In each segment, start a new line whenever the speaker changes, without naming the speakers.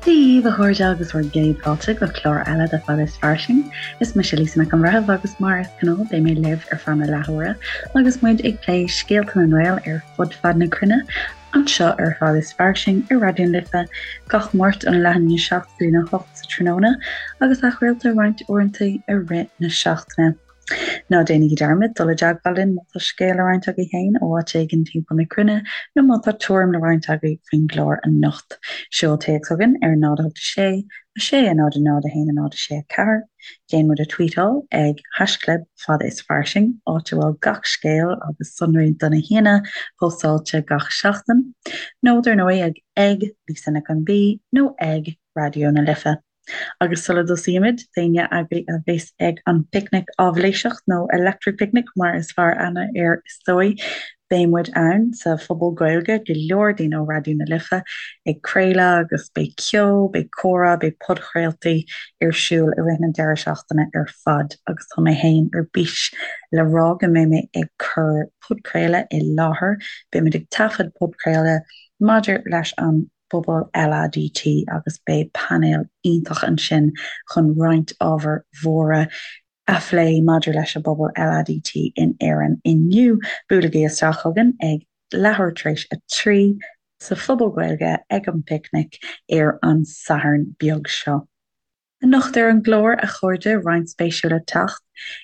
Dia daoibh a chairde agus bhur gcéad fáilte go clár eile de Fada is Fairsing. Is mise Lisa Nic an Bhreithimh agus mar is gnáth beidh mé libh ar feadh na leathuaire agus muid ag plé scéalta na nGael ar fud fad na cruinne anseo ar Fada is Fairsing ar Raidió na Life gach Máirt óna leath i ndiaidh 7 go dtí a 8 sa tráthnóna agus athchraolta roinnt uaireanta i rith na seachtaine. Ná déanaigí dearmad dul i dteagmháil linn má tá scéal le roinnt agaibh féin ó áit éigin timpeall na cruinne nó má tá tuairim le roinnt agaibh faoin gclár anocht. Seol téacs chugainn ar 0 8 6 6 0 0 1 0 6 4, déan muid a tweetáil ag haischlib fada is fairsing, áit a bhfuil gach scéal agus sonraí do na haíonna póstáilte gach seachtain, nó dar ndóigh ag ag Lisa Nic an B nó ag Raidió na Life. Agus sula dtosaímid, d'éinne agaibh a bheas ag an bPicnic Áibhléiseach, nó Electric Picnic mar is fearr aithne air is dóigh, beidh muid ann sa Phuball Gaeilge, go leor daoine ó Raidió na Life ag craoladh agus beidh ceol, beidh comhrá, beidh podchraoltaí ar siúl i rith na deireadh seachtaine ar fad agus tá mé féin ar bís le rá go mbeidh mé ag cur podchraoladh i láthair, beidh muid ag taifead podchraoladh maidir leis an bpobal LADT agus beidh painéal iontach ansin chun roinnt ábhair mhóra a phlé maidir leis an bpobal LADT in Éirinn inniu. Buailigí isteach chugainn ag leathuair tar éis 3 sa Phuball Gaeilge ag an bPicnic ar an Satharn beag seo. Anocht ar an gclár, a chairde, roinnt spéisiúil le teacht.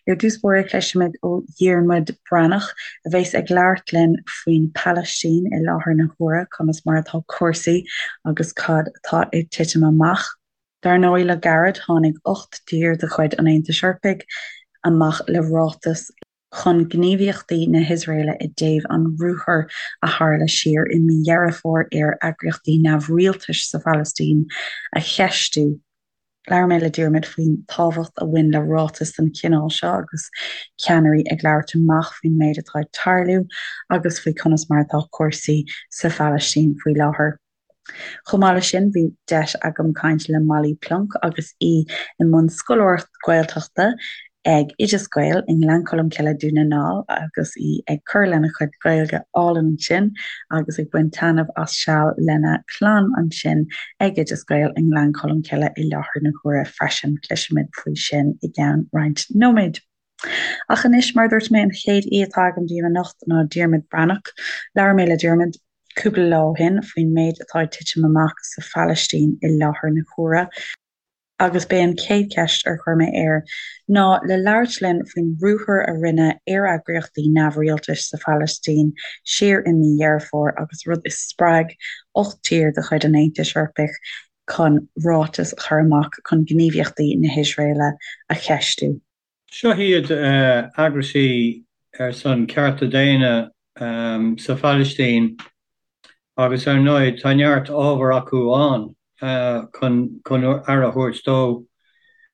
Ar dtús báire cloisfimid ó Dhiarmuid Breathnach, a bheas ag labhairt linn faoin Phalaistín i láthair na huaire, conas mar atá cúrsaí agus cad atá ag titim amach. Dar ndóigh, le gairid tháinig 8 dtír de chuid an Aontais Eorpaigh amach le ráiteas, chun gníomhaíochtaí na hIosraeile i dtaobh an ruathair a tharla siar i mí Dheireadh Fómhair ar eagraíochtaí neamhrialtais sa Phalaistín a cheistiú. Labhair mé le Diarmuid faoin tábhacht a bhain le ráiteas den chineál seo agus ceannairí ag labhairt amach faoin méid atá ag tarlú agus faoi conas mar atá cúrsaí sa Phalaistín faoi láthair. Chomh maith leis sin, bhí deis agam caint le Molly Plonk agus í i mbun scoláireacht Gaeltachta ag Oideas Gael i nGleann Cholm Cille, Dún na nGall agus í ag cur lena cuid Gaeilge álainn ansin agus ag baint taitneamh as seal lena clann ansin ag Oideas Gael i nGleann Cholm Cille i láthair na huaire freisin. Cloisfimid faoi sin i gceann roinnt nóiméad. Ach anois, mar a dúirt mé, an chéad aoi atá agam daoibh anocht ná Diarmuid Breathnach. Labhair mé le Diarmuid cúpla lá ó shin faoin méid atá ag titim amach sa Phalaistín i láthair na huaire, agus b'é an chéad cheist ar chuir mé air ná le labhairt linn faoin ruathar a rinneadh ar eagraíochtaí neamhrialtais sa Phalaistín siar i mí Dheireadh Fómhair agus rud a spreag 8 tír de chuid an Aontais Eorpaigh chun ráiteas a chur amach chun gníomhaíochtaí na hIosraeile a cheistiú.
Seo iad eagraisí ar son cearta daonna sa Phalaistín agus ar ndóigh tá neart ábhar acu ann chun aire a thabhairt dó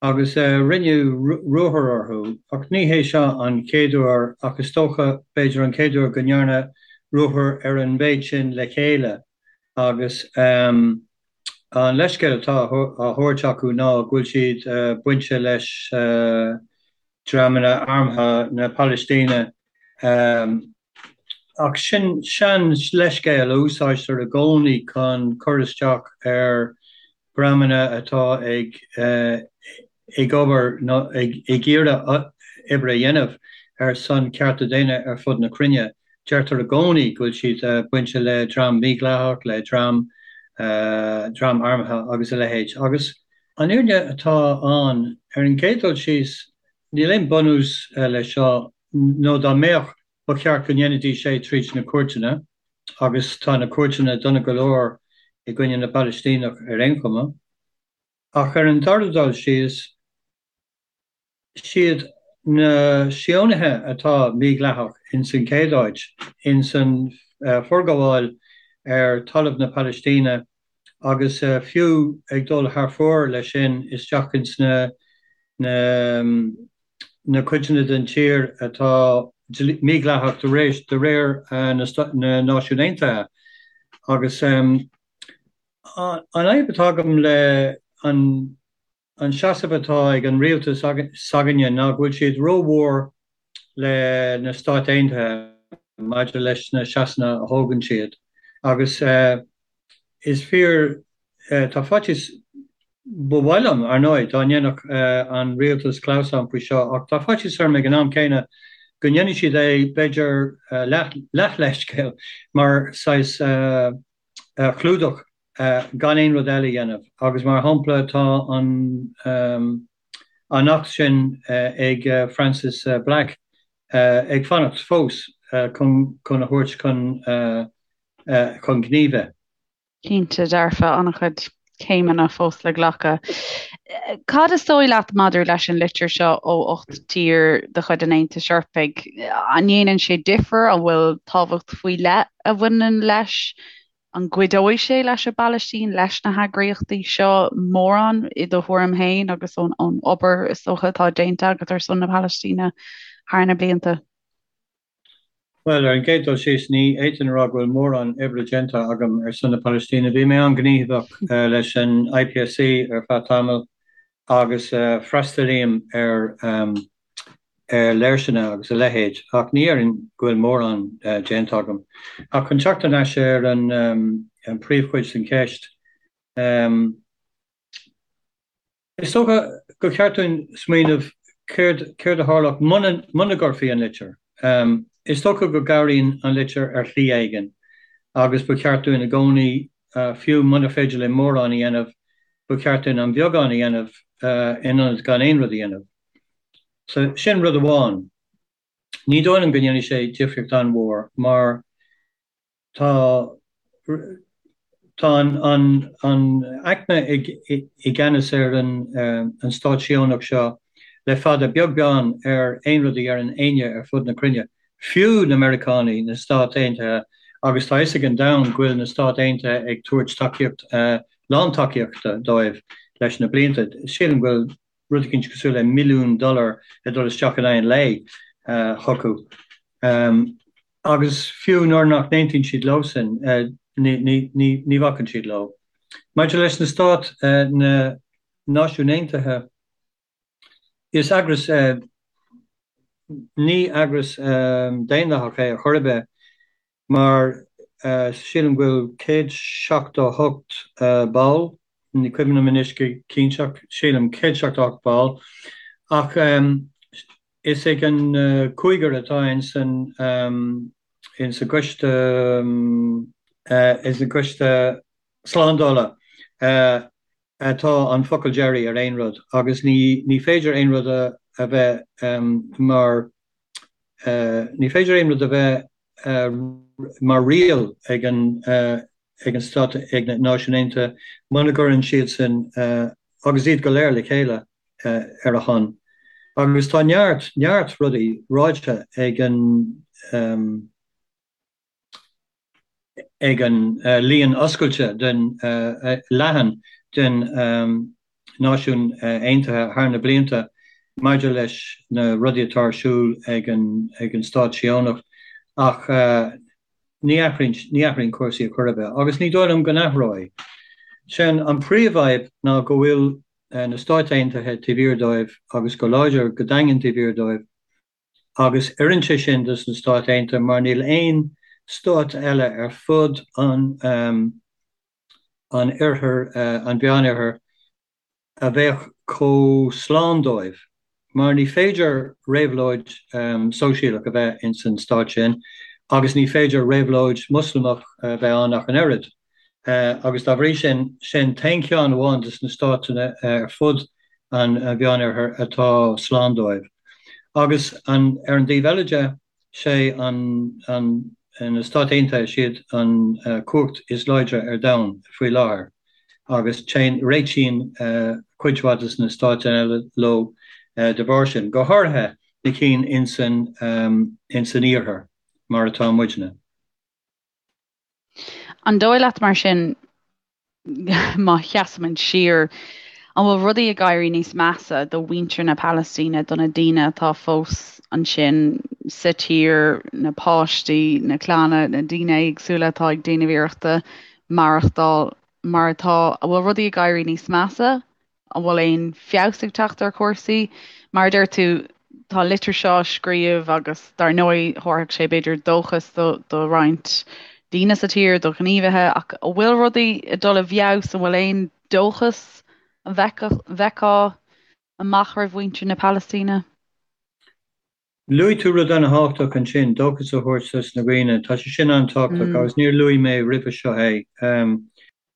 agus rinneadh ruathar orthu ach ní hé seo an chéad uair ach is dócha b'fhéidir an chéad uair go ndearnadh ruathar ar an mhéid sin le chéile agus an leithscéal atá á thabhairt acu ná go bhfuil siad bainte leis dreamanna armtha na Palaistíne. Ach sin sean-leithscéal a úsáidtear i gcónaí chun cur isteach ar dhreamanna atá ag ag obair nó ag iarraidh oibre a dhéanamh ar son cearta daonna ar fud na cruinne. Deirtear i gcónaí go bhfuil siad bainte le dream mídhleathach, le dream dream armtha agus a leithéid. Agus an fhírinne atá ann, ar an gcéad dul síos, níl aon bunús leis seo, nó dá mbeadh, ba cheart go ndéanfaidís é tríd na cúirteanna, agus tá na cúirteanna dona go leor i gcoinne na bPalaistíneach ar aon chuma. Ach ar an dara dul síos, siad na Síónaithe atá mídhleathach ins an chéad áit, ins an forghabháil ar talamh na Palaistíne agus fiú ag dul thar fóir leis sin isteach ins na na cuideanna den tír atá mídhleathach de réir na Náisiún Aontaithe. Agus an fhadhb atá agam le an an seasamh atá ag an rialtas s'againne ná go bhfuil siad rómhór le na Stáit Aontaithe maidir leis na seasanna a thógann siad agus is fíor. tá faitíos, ba mhaith liom, ar ndóigh, dá ndéanfadh an rialtas clamhsán faoi seo, ach tá faitíos orm ag an am céanna go ndéanfaidh siad é, b'fhéidir, leath-leithscéal, mar saghas clúdach gan aon rud eile a dhéanamh. Agus mar shampla, tá an an acht sin ag Frances Black ag fanacht fós chun a thabhairt chun chun gnímh é.
Cinnte dearfa, an-chuid céimeanna fós le glacadh. Cad is dóigh leat maidir leis an litir seo ó 8 tír de chuid an Aontais Eorpaigh? An ndéanann sé difear? An bhfuil tábhacht faoi leith a bhaineann leis? An gcuideoidh sé leis an bPalaistín, leis na heagraíochtaí seo mórán i do thuairim féin agus ón obair is dócha atá déanta agat ar son na Palaistíne thar na blianta?
Bhuel, ar an gcéad dul síos, ní fhéadfainn a rá go bhfuil mórán oibre déanta agam ar son na Palaistíne. Bhí mé an-ghníomhach leis an IPSC ar feadh tamaill agus freastalaím ar léirseanna agus a leithéid, ach ní déarfainn go bhfuil mórán déanta agam. Ach chun teacht thar n-ais ar an bpríomhchuid den cheist, Is dócha gur cheart dúinn smaoineamh céard céard a tharlódh muna muna gcuirfí an litir. Is dócha go gcabhraíonn an litir ar shlí éigin agus ba cheart dúinn i gcónaí, fiú muna féidir linn mórán a dhéanamh, ba cheart dúinn an beagán a dhéanamh in ionad gan aon rud a dhéanamh. So sin rud amháin. Ní dóigh liom go ndéanfaidh sé difríocht an-mhór mar Tá tá an an aicme i gceannas ar an an stát Síónach seo le fada, beag beann ar aon rud a deireann éinne ar fud na cruinne, fiú na Meiriceánaigh, na Stáit Aontaithe, agus tá fhios ag an domhan go bhfuil na Stáit Aontaithe ag tabhairt tacaíocht, lántacaíochta dóibh leis na blianta. Sílim go bhfuil rud eicínt cosúil le milliún dollar ag dul isteach in aghaidh an lae chucu. Agus fiú nuair nach n-aontaíonn siad leosan, ní bhacann siad leo. Maidir leis na Stáit, na Náisiúin Aontaithe, is eagras, ní eagras daonlathach é ar chor ar bith, mar sílim go bhfuil 178 ball, ní cuimhin liom anois go cinnte ach sílim 178 ball, ach is ag an cúigear atá ins an ins an gcoiste ins an gcoiste slándála atá an focal deiridh ar aon rud agus ní ní féidir aon rud a a bheith mar ní féidir aon rud a bheith mar riail ag an ag an Stát, ag na Náisiúin Aontaithe, muna gcuireann siadsan, agus iad go léir le chéile, ar a shon. Agus tá neart, neart rudaí ráite ag an ag an líon oscailte den leathan den Náisiúin Aontaithe thar na blianta maidir leis na rudaí atá ar siúl ag an ag an Stát Síónach ach ní athraíonn ní athraíonn cúrsaí ar chor ar bith agus ní dóigh liom go n-athróidh. Sin an príomhfhadhb ná go bhfuil na Stáit Aontaithe taobh thiar dóibh agus go láidir go daingean taobh thiar dóibh agus oireann sé sin dos na Stáit Aontaithe mar níl aon stát eile ar fud an an oirthir, an Mheánoirthir, a bheadh chomh slán dóibh, mar ní féidir réabhlóid sóisialach a bheith ins an stát sin agus ní féidir réabhlóid Moslamach a bheith ann ach an oiread. Agus dá bhrí sin, sin t-aon cheann amháin de na státanna ar fud an Mheánoirthir atá slán dóibh. Agus an, ar an dtaobh eile de, sé an, an, na Stáit Aontaithe, siad an chumhacht is láidre ar domhan faoi láthair agus téann, réitíonn cuid mhaith de na stáit eile leo de bharr sin, go háirithe na cinn ins an, ins an iarthar mar atá muidne.
An dóigh leat mar sin, má sheasaimid siar, an bhfuil rudaí ag éirí níos measa do mhuintir na Palaistíne, do na daoine atá fós ansin sa tír, na páistí, na clanna, na daoine éagsúla atá ag déanamh iarrachta maireachtáil mar atá, an bhfuil rudaí ag éirí níos measa? An bhfuil aon feabhas ag teacht ar chúrsaí? Mar a deir tú, tá an litir seo á scríobh agus dar ndóigh thabharfadh sé b'fhéidir dóchas do roinnt daoine sa tír, do ghníomhaithe, ach an bhfuil rudaí ag dul i bhfeabhas, an bhfuil aon dóchas a bhfeicfeá amach roimh mhuintir na Palaistíne?
Luaigh tú rud an-thábhachtach ansin, dóchas a thabhairt dos na dhaoine. Tá sé sin an-tábhachtach agus níor luaigh mé roimhe seo é.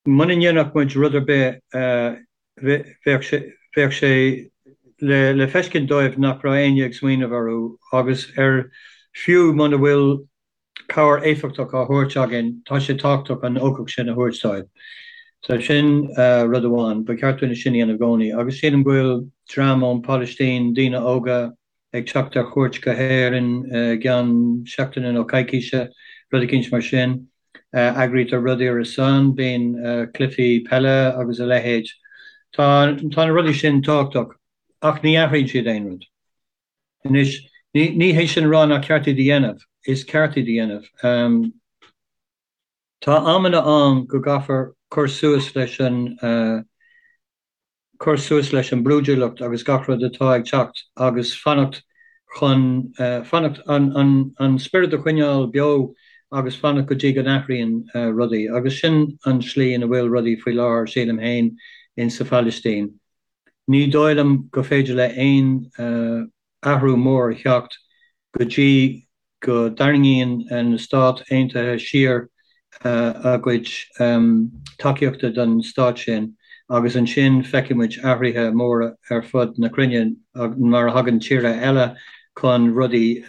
Muna ndéanfadh muid rud ar bith, bheadh sé, bheadh sé le le feiscint dóibh nach raibh éinne ag smaoineamh orthu agus ar fiú muna bhfuil cabhair éifeachtach á thabhairt againn, tá sé tábhachtach an ugach sin a thabhairt dóibh. So sin rud amháin, ba cheart dúinn é sin a dhéanamh i gcónaí. Agus sílim go bhfuil dream ón Phalaistín, daoine óga, ag teacht ar chuairt go hÉirinn i gceann seachtaine nó coicíse, rud eicínt mar sin. Eagraítear rudaí ar a son, bíonn cluichí peile agus a leithéid. Tá tá na rudaí sin tábhachtach ach ní athraíonn siad aon rud. Anois, ní hé sin a rá nach ceart iad a dhéanamh, is ceart iad a dhéanamh. Tá amanna ann go gcaithfear cur suas leis an, cur suas leis an brúidiúlacht agus gach rud atá ag teacht agus fanacht chun, fanacht, an spiorad a choinneáil beo agus fanacht go dtí go n-athraíonn rudaí. Agus sin an tslí ina bhfuil rudaí faoi láthair, sílim féin, in sa Phalaistín. Ní dóigh liom go féidir le aon athrú mór a theacht go dtí go dtarraingíonn na Stáit Aontaithe siar a gcuid tacaíochta don stát sin agus ansin feicfidh muid athruithe móra ar fud na cruinne mar a thagann tíortha eile chun rudaí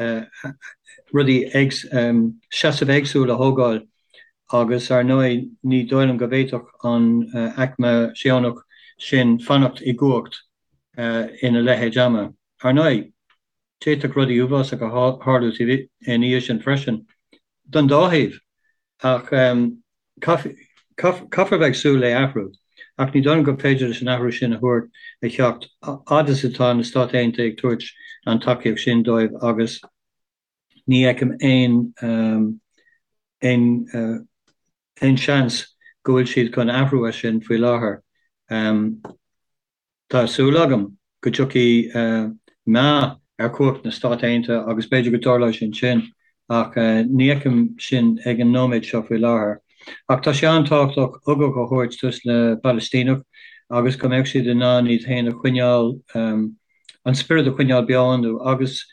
rudaí seasamh éagsúil a thógáil. Agus, ar ndóigh, ní dóigh liom go bhféadfadh an aicme Síónach sin fanacht i gcumhacht ina leithéid ama. Ar ndóigh, d'fhéadfadh rudaí uafásacha tharlú ina dhiaidh sin freisin, don dá thaobh, ach caithfear bheith ag súil le athrú. Ach ní dóigh liom gur féidir leis an athrú sin a thabhairt a theacht fhad is atá na Stáit Aontaithe ag tabhairt an tacaíocht sin dóibh agus Ní fheicim aon aon seans go bhfuil siad chun athrú as sin faoi láthair. Tá súil agam go dtiocfaidh meath ar chumhacht na Stát Aontaithe agus b'fhéidir go dtarlóidh sin sin ach ní fheicim sin ag an nóiméad seo faoi láthair. Ach tá sé an-tábhachtach ugach a thabhairt dos na Palaistínigh agus go mbeadh siad in ann iad féin a choinneáil, an spiorad a choinneáil beo iontu agus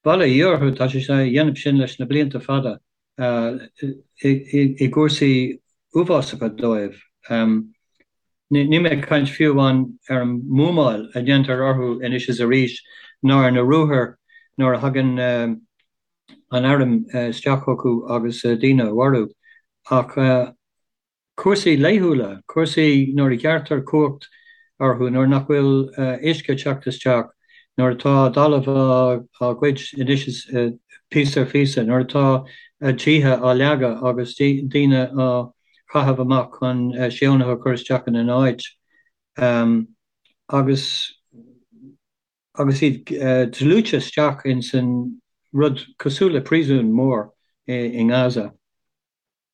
Bail ó Dhia orthu, tá siad á dhéanamh sin leis na blianta fada i gcúrsaí uafásacha dóibh. Níl mé ag caint fiú amháin ar an mbuamáil a dhéantar orthu anois is arís ná ar na ruathair nuair a thagann an airm isteach chucu agus daoine a mharú ach Cúrsaí laethúla, cúrsaí nuair a ghearrtar cumhacht orthu, nuair nach bhfuil uisce ag teacht isteach, nuair atá a dtalamh á ghoid anois is píosa ar phíosa, nuair atá a dtithe á leagadh agus daoine á chaitheamh amach chun Síónaithe a chur isteach ina n-áit agus agus iad dlúite isteach ins an rud cosúil le príosún mór i nGaza.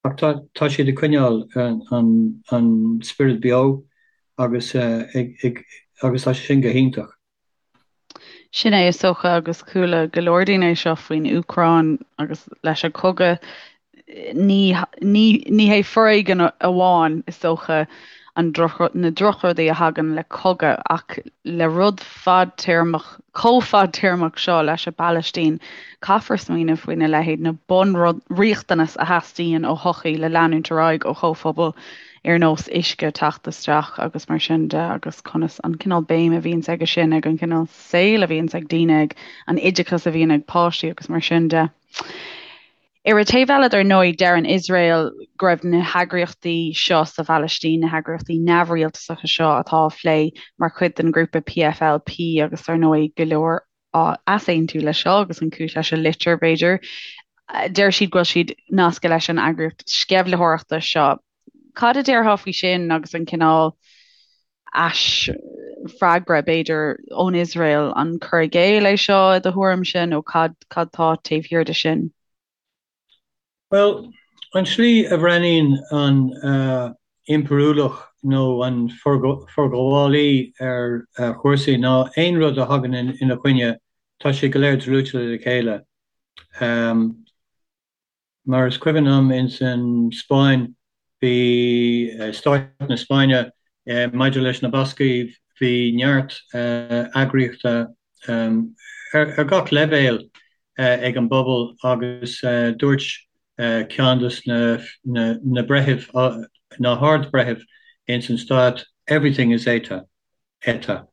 Ach tá siad ag coinneáil an spiorad beo agus agus tá sé sin go hiontach.
Sin é is dócha agus chuala go leor daoine é seo faoin Úcráin agus leis an chogadh. Ní ní hé foréigean amháin is dócha an na drochrudaí a thagann le cogadh ach le rud fadtéarmach chomh fadtéarmach seo leis an bPalaistín, caithfear smaoineamh faoina leithéid, na bunriachtanais a theastaíonn ó shochaí le leanúint ar aghaidh, ó chomhphobal, ar nós uisce teacht isteach agus mar sin de, agus conas an cineál béim a bhíonns aige sin, ag an gcineál saoil a bhíonns ag daoine, ag an oideachas a bhíonn ag páistí agus mar sin de. Ar an taobh eile, dar ndóigh, deireann Iosrael go raibh na heagraíochtaí seo sa Phalaistín, na heagraíochtaí neamhrialtasacha seo atá á phlé mar chuid den ghrúpa PFLP agus dar ndóigh go leor á easaontú leis seo agus an chúis leis an litir, b'fhéidir. Deir siad go bhfuil siad nasctha leis an eagraíocht sceimhlitheoireachta seo. Cad a déarfá faoi sin agus an cineál aisfhreagra, b'fhéidir, ón Iosrael? An cur i gcéill é seo i do thuairimse nó cad cad tá taobh thiar de sin?
Bhuel, an tslí a bhreathnaíonn an impiriúlach nó an forghabhálaí ar chúrsaí ná aon rud a thagann ina choinne, tá sé go léir dlúite le chéile. Mar is cuimhin liom ins an Spáinn, bhí Stáit na Spáinne, maidir leis na Bascaigh, bhí neart eagraíochta ar gach leibhéal ag an bpobal agus dúirt ceann des na breithimh, na hArd-Bhreithimh ins an Stát, everything is ETA, ETA.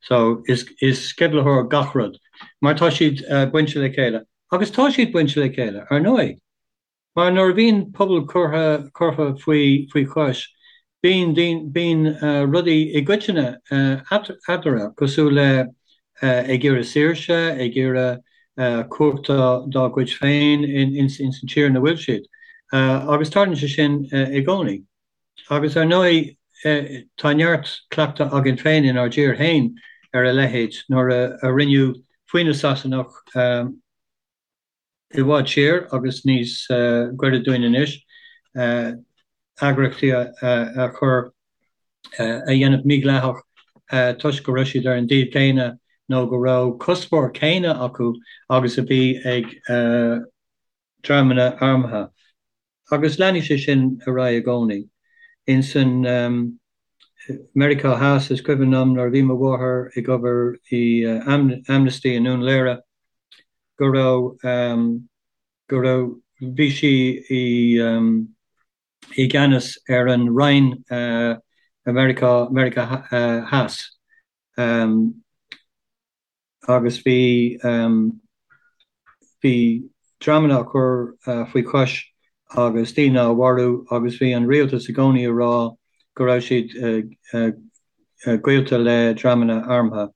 So is sceimhlitheoir gach rud, mar tá siad bainte le chéile. Agus tá siad bainte le chéile, ar ndóigh. Mar nuair a bhíonn pobal curtha curtha faoi faoi chois, bíonn bíonn rudaí i gcoitinne eatarthu, cosúil le ag iarraidh saoirse, ag iarraidh cumhacht dá gcuid féin ins an tír ina bhfuil siad. Agus tarlaíonn sé sin i gcónaí. Agus ar ndóigh, tá neart cleachtadh againn féin inár dtír féin ar a leithéid, nuair a rinneadh faoi na Sasanach i bhfad siar agus níos gaire dúinn anois, eagraíochtaí a chur, a dhéanamh mídhleathach toisc go raibh siad ar an dtaobh céanna nó go raibh cuspóir céanna acu agus a bhí ag dreamanna armtha. Agus leanfaidh sé sin ar aghaidh i gcónaí. Ins an Meiriceá Theas, is cuimhin liom nuair a bhí mo mháthair ag obair i Amnesty i nDún Laoghaire go raibh, go raibh, bhí sí i i gceannas ar an Roinn Meiriceá, Meiriceá Theas. Agus bhí, bhí dreamanna á cur faoi chois agus daoine á mharú agus bhí an rialtas i gcónaí ag rá go raibh siad gaolta le dreamanna armtha.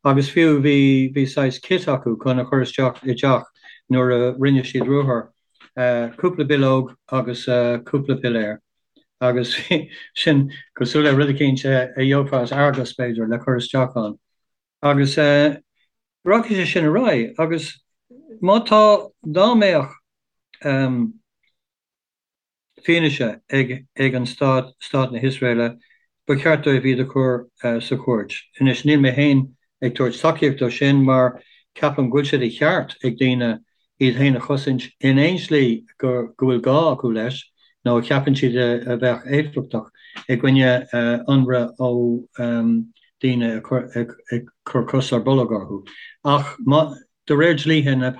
Agus fiú bhí, bhí saghas kit acu chun a chur isteach i dteach nuair a rinne siad ruathar, cúpla bileog agus cúpla piléar. Agus sin cosúil le rud eicínt a gheofá as Argos b'fhéidir le cur isteach ann. Agus rachaidh sé sin ar aghaidh agus má tá, dá mbeadh fianaise ag ag an stát, stát na hIosraeile, ba cheart dóibh iad a chur sa chúirt. Anois níl mé féin ag tabhairt tacaíocht dó sin mar ceapaim go bhfuil sé de cheart ag daoine iad féin a chosaint in aon slí go bhfuil gá acu leis nó a cheapann siad a bheadh éifeachtach i gcoinne ionradh ó daoine ag cur cos ar bolg orthu. Ach de réir dlíthe na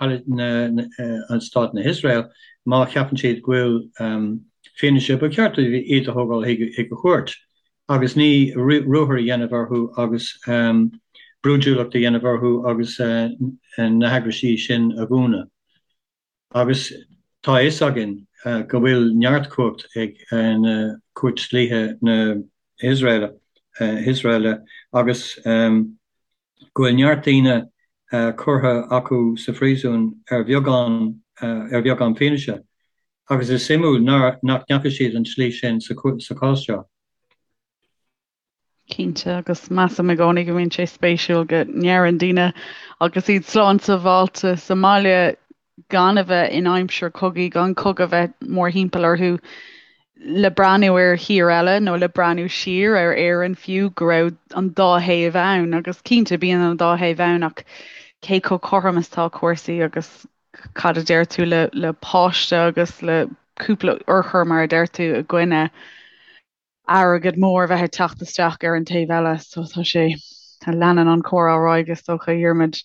Stát na hIosrael, má cheapann siad go bhfuil fianaise, ba cheart dóibh iad a thógáil chuig an chúirt. agus ní ruathar a dhéanamh orthu agus brúidiúlacht a dhéanamh orthu agus na heagraisí sin a dhúnadh. Agus tá a fhios againn go bhfuil neart cumhacht ag na cúirt dlíthe na hIosraeile agus go bhfuil neart daoine curtha acu sa phríosún ar bheagán ar bheagán fianaise. Agus is suimiúil nach ndeachaigh siad an tslí sin sa chás seo.
Cinnte, agus measaim i gcónaí go mbíonn sé spéisiúil go ndeireann daoine agus iad slán sábháilte sa mbaile gan a bheith in aimsir cogaidh, gan cogadh a bheith mórthimpeall orthu, le breathnú ar thír eile nó le breathnú siar ar Éirinn fiú, go raibh an dá thaobh ann. Agus cinnte, bíonn an dá thaobh ann ach cé chomh cothrom is atá cúrsaí agus cad a deir tú le le páiste agus le cúpla urchar mar a deir tú i gcoinne airgead mór a bheith ag teacht isteach ar an taobh eile. So tá sé, leanann an comhrá ar aghaidh is dócha, a Dhiarmuid.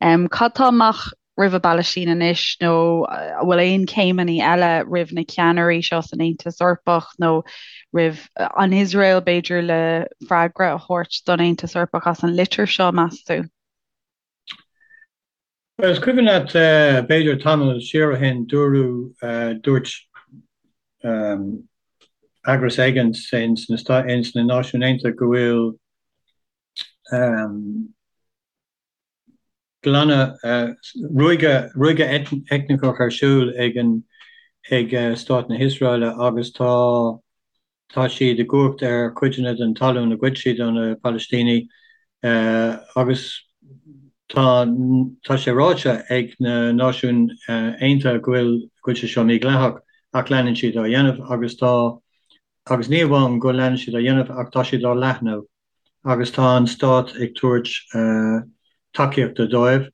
Um, cad tá amach roimh an bPalaistín anois nó an bhfuil aon chéimeanna eile roimh na ceannairí seo san Aontas Eorpach nó roimh an Iosrael b'fhéidir le freagra a thabhairt don Aontas Eorpach as an litir seo, meas tú?
Bhuel, is cuimhin leat, b'fhéidir tamall siar ó shin, dúradh, dúirt eagras éigin ins na Náisiúin Aontaithe go bhfuil glanadh, ruaigeadh, ruaigeadh eitneach ar siúl ag an, ag Stát na hIosraeile agus tá, Tá siad i gcumhacht ar chuideanna den talún a ghoid siad ó na Palaistínigh agus tá tá sé ráite ag na Náisiúin Aontaithe go bhfuil go bhfuil sé seo mídhleathach ach leanann siad á dhéanamh agus tá agus ní amháin go leanann siad á dhéanamh ach tá siad á leathnú agus tá an stát ag tabhairt tacaíochta dóibh.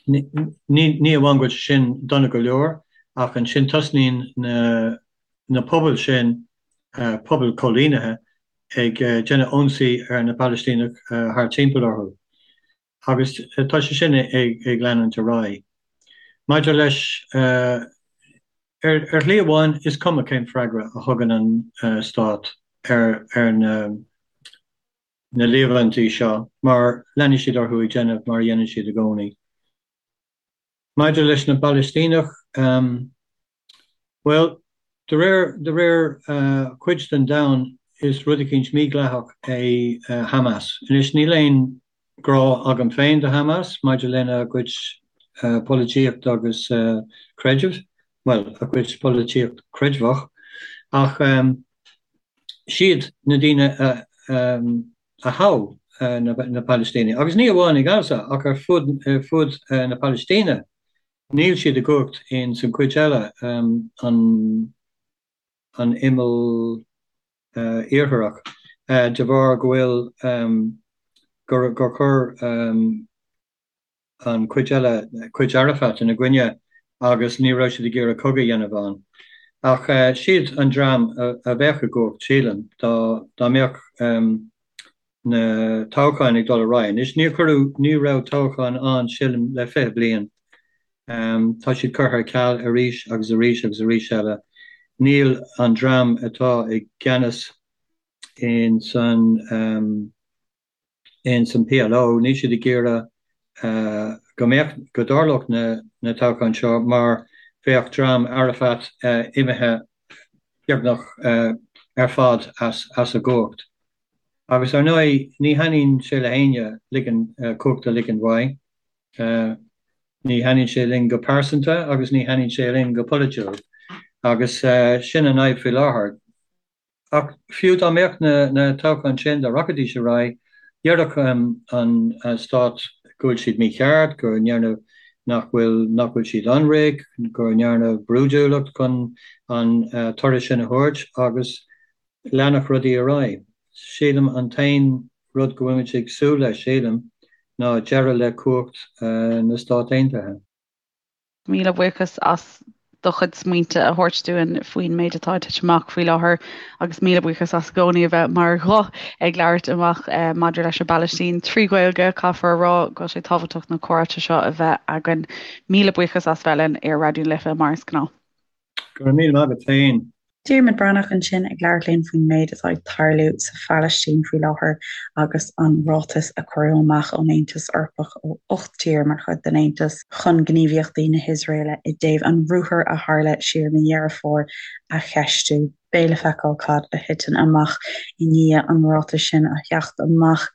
Ní amháin go bhfuil sé sin dona go leor. Ach ansin tosnaíonn na na pobail sin, pobail coilínithe, ag déanamh ionsaí ar na Palaistínigh thart timpeall orthu. Agus tá sé sin ag leanúint ar aghaidh. Maidir leis, ar shlí amháin, is cuma cén freagra a thugann an stát ar na líomhaintí seo mar leanfaidh siad orthu ag déanamh mar a dhéanann siad i gcónaí. Maidir leis na bPalaistíneach, bhuel, de réir, de réir cuid den domhan, is rud eicínt mídhleathach é Hamas. Anois, níl aon ghrá agam féin do Hamas maidir lena gcuid polaitíocht agus creidimh, bhuel, a gcuid polaitíocht creidmheach, ach siad na daoine a a thogh na Palaistínigh, agus ní amháin i Gaza ach ar fud ar fud na Palaistíne. Níl siad i gcumhacht in san cuid eile, an an imeall iartharach, de bharr go bhfuil gur gur chuir an chuid eile, cuid Arafat ina gcoinne agus ní raibh siad ag iarraidh cogadh a dhéanamh ann. Ach siad an dream a bheadh i gcumhacht, sílim, dá mbeadh na toghcháin ag dul ar aghaidh. Anois, níor cuireadh, ní raibh toghcháin ann, sílim, le 20 bliain. Tá siad curtha ar ceal arís agus arís agus arís eile. Níl an dream atá i gceannas in san. ins an PLO, níl siad ag iarraidh go mbeadh, go dtarlódh na toghcháin seo mar bheadh dream Arafat imithe beagnach ar fad as a gcumhacht. Agus ar ndóigh, ní thaitníonn sé le héinne ligean, cumhacht a ligean uaidh. Ní thaitníonn sé linn go pearsanta agus ní thaitníonn sé linn go polaitiúil. Agus sin an fhadhb faoi láthair. Ach fiú dá mbeadh na toghcháin sin, dá rachaidís ar aghaidh, déarfadh an stát go bhfuil siad mícheart, go ndearnadh, nach bhfuil, nach bhfuil siad ionraic, go ndearnadh brúidiúlacht chun an toradh sin a thabhairt agus leanfadh rudaí ar aghaidh. Sílim an t-aon rud go bhfuilimid ag súil leis, sílim, ná deireadh le cumhacht na Stát Aontaithe.
Míle buíochas as do chuid smaointe a thabhairt dúinn faoin méid atá ag titim amach faoi láthair agus míle buíochas as i gcónaí a bheith mar ghuth ag labhairt amach maidir leis an bPalaistín trí Ghaeilge. Caithfear a rá go bhfuil sé tábhachtach na comhráite seo a bheith againn. Míle buíochas as bheith linn ar Raidió na Life mar is gnáth.
Go raibh míle maith agat féin.
Diarmuid Breathnach ansin ag labhairt linn faoin méid atá ag tarlú sa Phalaistín faoi láthair agus an ráiteas a cuireadh amach ón Aontas Eorpach ó 8 tír mar chuid den Aontas chun gníomhaíochtaí na hIosraeile i dtaobh an ruathair a tharla siar i mí Dheireadh Fómhair a cheistiú. Beidh le feiceáil cad a thiteann amach i ndiaidh an ráitis sin a theacht amach.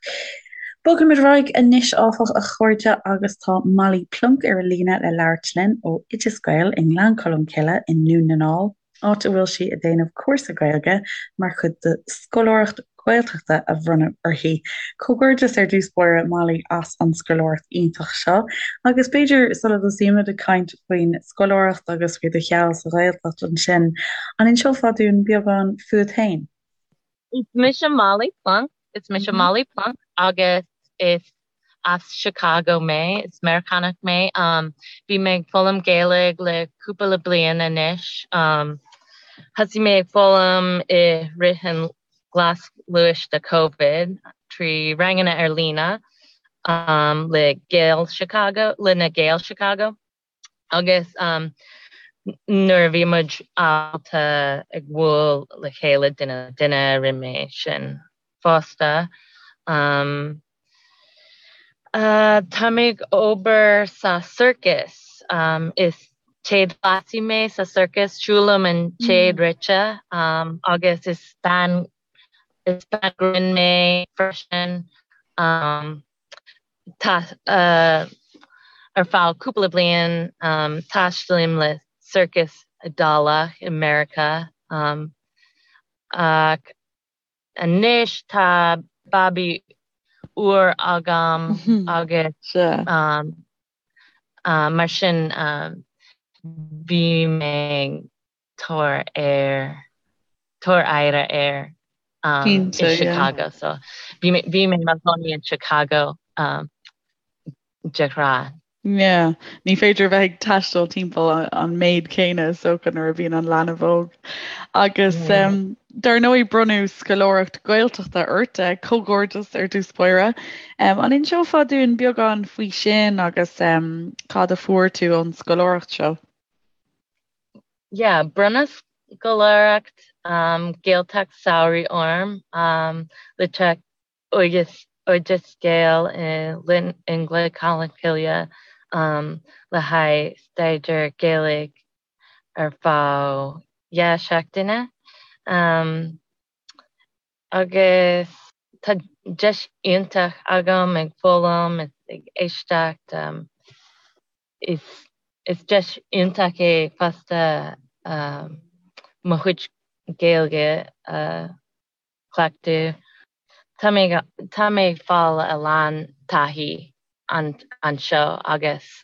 Bogfaimid ar aghaidh anois, áfach, a chairde, agus tá Molly Plonk ar an líne le labhairt linn ó Oideas Gael i nGleann Cholm Cille i nDún na nGall, áit a bhfuil sí ag déanamh cúrsa Gaeilge mar chuid de scoláireacht Ghaeltachta a bronnadh uirthi. Comhghairdeas ar dtús báire, Molly, as an scoláireacht iontach seo, agus b'fhéidir sula dtosaímid ag caint faoin scoláireacht agus faoi do sheal sa Ghaeltacht ansin, an inseofá dúinn beagán fút féin?
Is mise Molly Plonk. Is mise Molly Plonk agus is as Chicago mé. Is Meiriceánach mé. Bhí mé ag foghlaim Gaeilge le cúpla bliain anois. Thosaigh mé ag foghlaim i rith an glas luais de Covid trí ranganna ar líne le Gaeil Chicago, le na Gaeil Chicago. Agus nuair a bhí muid ábalta ag bualadh le chéile duine le duine, rinne mé sin fosta. Tá mé ag obair sa circus. Is téadghleasaí mé sa circus. Siúlaim an téad rite agus is bean is bean grinn mé freisin. Tá ar feadh cúpla bliain taistealaím le circus Iodálach i Meiriceá ach anois tá babaí úr agam agus mar sin bhí mé tabhair air tabhair aire air i Chicago so bhí mé bhí mé i mo chónaí in Chicago de ghnáth.
Yeah, ní féidir a bheith ag taisteal timpeall an méid céanna is dócha nuair a bhíonn an leanbh óg. Agus dar ndóigh bronnadh scoláireacht Gaeltachta ort, comhghairdeas ar dtús báire. An inseofá dúinn beagán faoi sin agus cad a fuair tú ón scoláireacht seo?
Yeah, bronnadh scoláireacht Gaeltacht samhraidh orm le teacht Oideas Oideas Gael i nGleann Cholm Cille le haghaidh staidéar Gaeilge ar feadh 2 seachtaine agus tá deis iontach agam ag foghlaim is ag éisteacht. Is deis iontach é fosta mo chuid Gaeilge a chleachtadh. Tá mé tá mé ag fáil a lán taithí anseo agus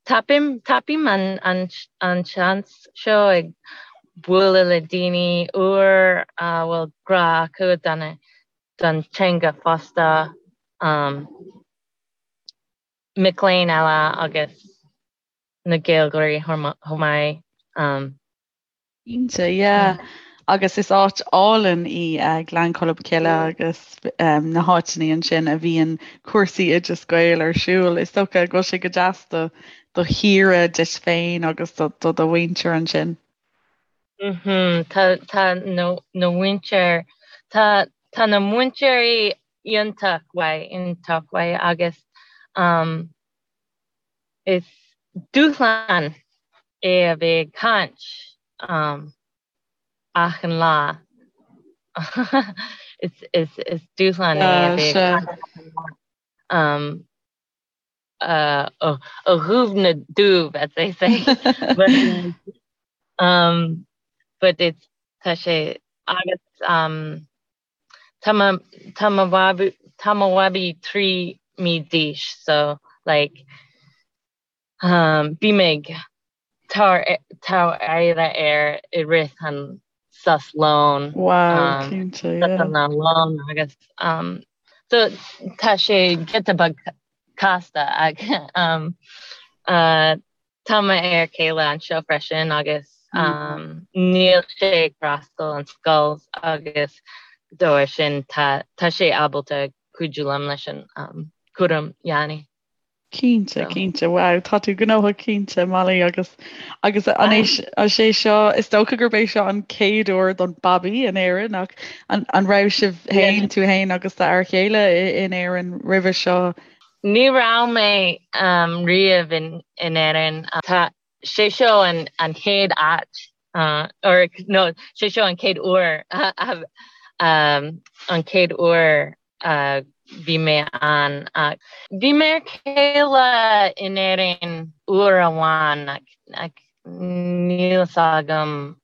tapaím tapaím an an an seans seo ag bualadh le daoine úr a bhfuil grá acu don don teanga fosta, mic léinn eile agus na Gaeilgeoirí chomh maith.
Cinnte, yeah. Agus is áit álainn í Gleann Cholm Cille agus na háiteanna ansin a bhíonn cúrsaí Oideas Gael ar siúl. Is dócha go bhfuil sé go deas do do shaoire duit féin agus do do do mhuintir ansin.
Mhm, tá tá na na mhuintir tá tá na múinteoirí iontach mhaith iontach mhaith agus um, Is dúshlán é a bheith ag caint achan lá. Is dúshlán é a bheith ag caint achan lá. Ó dhubh na dubh, as they say. But, um, but it's, tá sé agus um, Tá mo tá mo bhabaí tá mo bhabaí 3 mí d'aois so like um bím ag tabhair tabhair aire air i rith an sos lóin
Wow, um cinnte, yeah.
sosanna lóin agus um so tá sé giota beag casta ach um uh Tá mo fhear céile anseo freisin agus níl sé ag freastal an scoil agus dá bharr sin tá tá sé ábalta cuidiú liom leis an cúram leanaí.
Cinnte, cinnte. Wow, tá tú gnóthach cinnte, Molly, agus agus an é sé seo is dócha gurb é seo an chéad uair don babaí in Éirinn ach an an raibh sibh féin tú féin agus d'fhear chéile in Éirinn roimhe seo?
Ní raibh mé riamh in Éirinn. Tá sé seo an chéad áit or no sé seo an chéad uair an chéad uair a bhí mé ann. Bhí m'fhear céile in Éirinn uair amháin ach níl fhios agam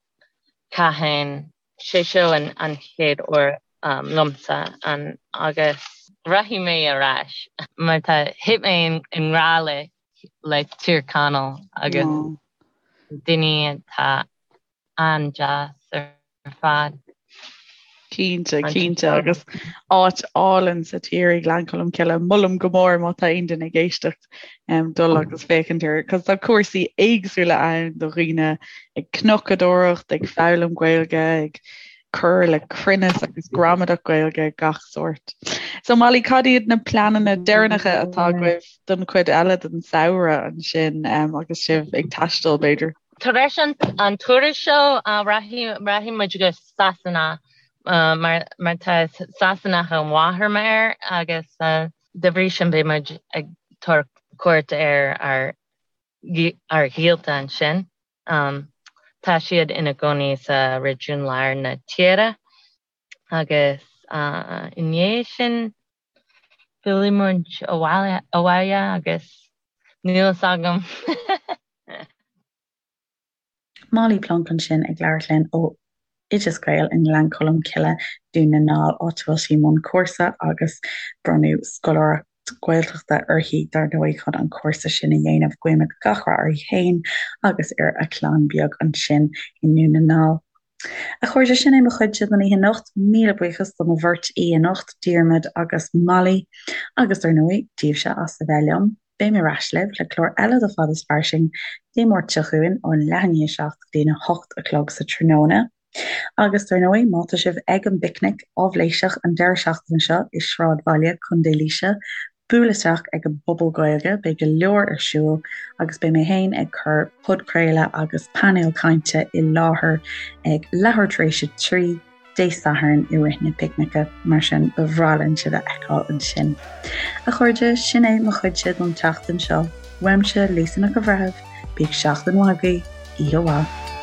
cathain. Sé seo an chéad uair liomsa ann agus rachaidh mé ar ais mar tá thit mé i ngrá le le Tír Chonaill agus daoine atá an-deas ar fad.
Cinnte, cinnte agus áit álainn sa tír í Gleann Cholm Cille. Molaim go mór má tá aon duine ag éisteacht dul agus féachaint air, cos tá cúrsaí éagsúla ann do dhaoine ag cnocadóireacht, ag foghlaim Gaeilge, ag cur le cruinneas agus gramadach Gaeilge gach sórt. So Molly, cad iad na pleananna deireanacha atá agaibh don chuid eile den samhradh ansin um, agus sibh ag taisteal b'fhéidir?
Tar éis an, an turas seo uh, rachaidh, rachaidh muid go Sasana uh, mar, mar tá Sasanach an mháthair m'fhear agus uh, De bhrí sin beidh muid ag tabhairt cuairt ar ár ár ghaolta ansin. Tá siad ina gcónaí sa réigiún lár na tíre agus i ndiaidh sin fillfidh muid abhaile agus níl fhios agam.
Molly Plonk ansin ag labhairt linn ó Oideas Gael i nGleann Cholm Cille, Dún na nGall, áit a bhfuil sí i mbun cúrsa agus bronnadh scoláireacht Gaeltachta uirthi dar ndóigh chun an cúrsa sin a dhéanamh. Guímid gach rath uirthi féin agus ar a clann beag ansin i nDún na nGall. A chairde, sin é mo chuidse don oíche anocht. Míle buíochas do mo bheirt aoi anocht, Diarmuid agus Molly, agus dar ndóigh, daoibhse as a bheith liom. Beidh mé ar ais libh le clár eile de Fad is Fairsing Dé Máirt seo chugainn ón leath i ndiaidh a 7 go dtí'n 8 a chlog sa tráthnóna. Agus dar ndóigh, má tá sibh ag an bPicnic Áibhléiseach an deireadh seachtaine seo i Sráidbhaile Contae Laoise, buail isteach ag an bPuball Gaeilge, beidh go leor ar siúl agus beidh mé féin ag cur podchraoladh agus painéal cainte i láthair ag leathuair tar éis a 3 Dé Sathairn i rith na picnice, mar sin ba bhreá linn sibh a fheiceáil ansin. A chairde, sin é mo chuidse don tseachtain seo. Uaimse, Lisa Nic an Bhreithimh, bíodh seachtain mhaith agaibh, oíche mhaith.